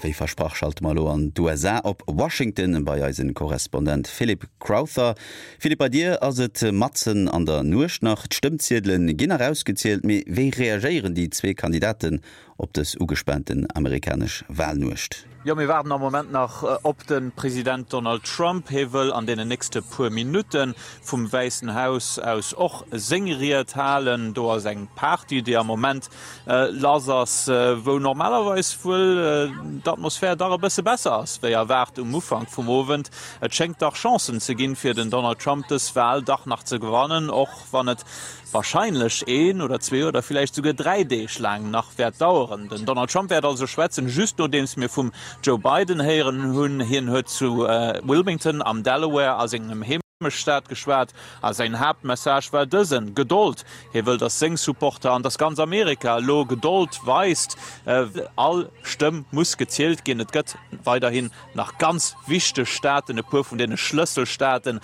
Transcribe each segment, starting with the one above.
Wéi versprach schalte mer elo an d'USA op Washington bei eisen Korrespondent Philip Crowther. Philippe, bei dir ass et matzen an der Nuecht nach. D'Stëmmziedelen ginn nach ausgezielt, mee wéi reagéieren déi zwee Kandidaten op dës ugespaanten amerikanesch Walnuecht? Jo, mir waarden am Moment nach op de President Donald Trump. Hie wëll an deenen nächste puer Minutte vum Wäissen Haus aus och seng Ried halen. Do ass eng Party, déi am Moment lass ass, wou normalerweis wuel d'Atmosphär dach e bësse besser ass wéi erwaart um Ufank vum Owend. Et schéngt dach Chancen ze ginn, fir den Donald Trump dës Wal dach nach ze gewannen, och wann et warscheinlech een oder zwee oder villäicht souguer 3 Deeg laang nach wäert daueren. Den Donald Trump wäert also schwätzen, just nodeems mir vum Joe Biden héieren hunn. Hien huet zu Wilmington am Delaware a sengem Heemechtsstaat geschwat a säin Haaptmessage war dësen, Gedold! Hie wëll, datt seng Supporter an datt ganz Amerika elo Gedold weist. All Stëmm muss gezielt ginn. Et gëtt weiderhin nach ganz wichteg Staaten, e puer vun deene Schlësselstaaten,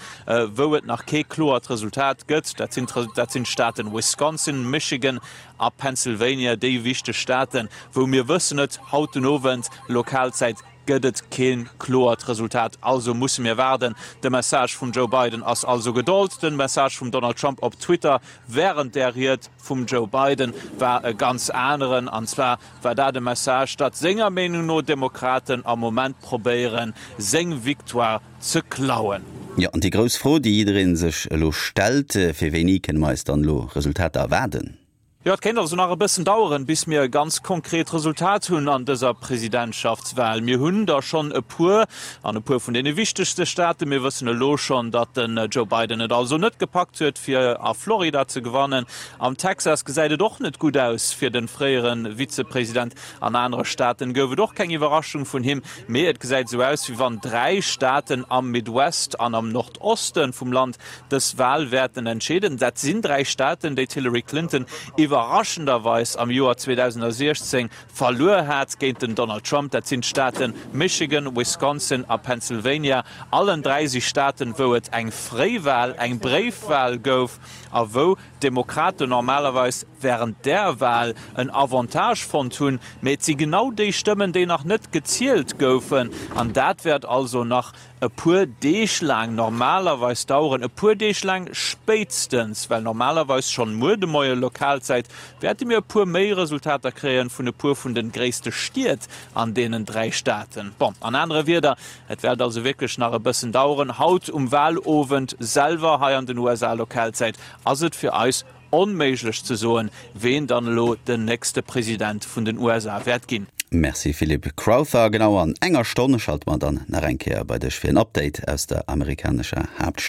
wou et nach kee kloert Resultat gëtt. Dat sinn dat sinn d'Staaten Wisconsin, Michigan a Pennsylvania, déi wichteg Staaten, wou mir wëssen et haut den Owend Lokalzäit gëtt et kee kloert Resultat. Also musse mir waarden. De Message vum Joe Biden ass also Gedold. De Message vum Donald Trump op Twitter wärend där Ried vum Joe Biden war e ganz aneren, an zwar war dat e Message, datt senger Meenung no d'Demokraten am Moment probéieren, seng Victoire ze klauen. Jo, an déi grouss Fro, déi jidderee sech elo stellt, Fir wéini kënne mer eis dann elo Resultater erwaarden? Jo, et kéint also nach e bëssen daueren, bis mir e ganz konkret Resultat hunn an dëser Presidentschaftswal. Mir hunn der schonn e puer an e puer vun deene wichtegste Staaten. Mir wëssen elo schonn, datt den Joe Biden et also net gepackt huet, fir a Florida ze gewannen. Am Texas gesäit et och net gutt aus fir de fréiere Vizepresident. An anere Staaten gouf et och keng Iwwerraschung vun him, mee et gesäit esou aus, wéi wann 3 Staaten am Midwest an am Nordoste vum Land dës Wal wäerten entscheeden. Dat sinn 3 Staaten, déi d'Hillary Clinton iwwerraschenderweis am Joer 2016 verluer hat géint den Donald Trump. Dat sinn d'Staate Michigan, Wisconsin a Pennsylvania. Allen 3 si Staaten, wou et eng Fréiwal, eng Bréifwal gouf a wou d'Demokraten normalerweis wärend där Wal en Avantage fonnt hunn. Mee et si genau déi Stëmmen, déi nach net gezielt goufen. An dat wäert also nach e puer Deeg laang normalerweis daueren, e puer Deeg laang spéitstens, well normalerweis schonn muer de Moie Lokalzäit wäerte mir e puer méi Resultater kréien vun e puer vun de gréisste Stied an deenen 3 Staaten. Bon, an anere Wierder, et wäert also wierklech nach e bëssen daueren. Haut um Walowend selwer hei an den USA Lokalzäit ass et fir eis Onméiglech ze soen, ween dann elo den nächste President vun den USA wäert ginn. Merci Philippe Crowther. Genau an enger Stonn schalte mer dann nach eng Kéier bei dech fir en Update aus der amerikanescher Haaptstad.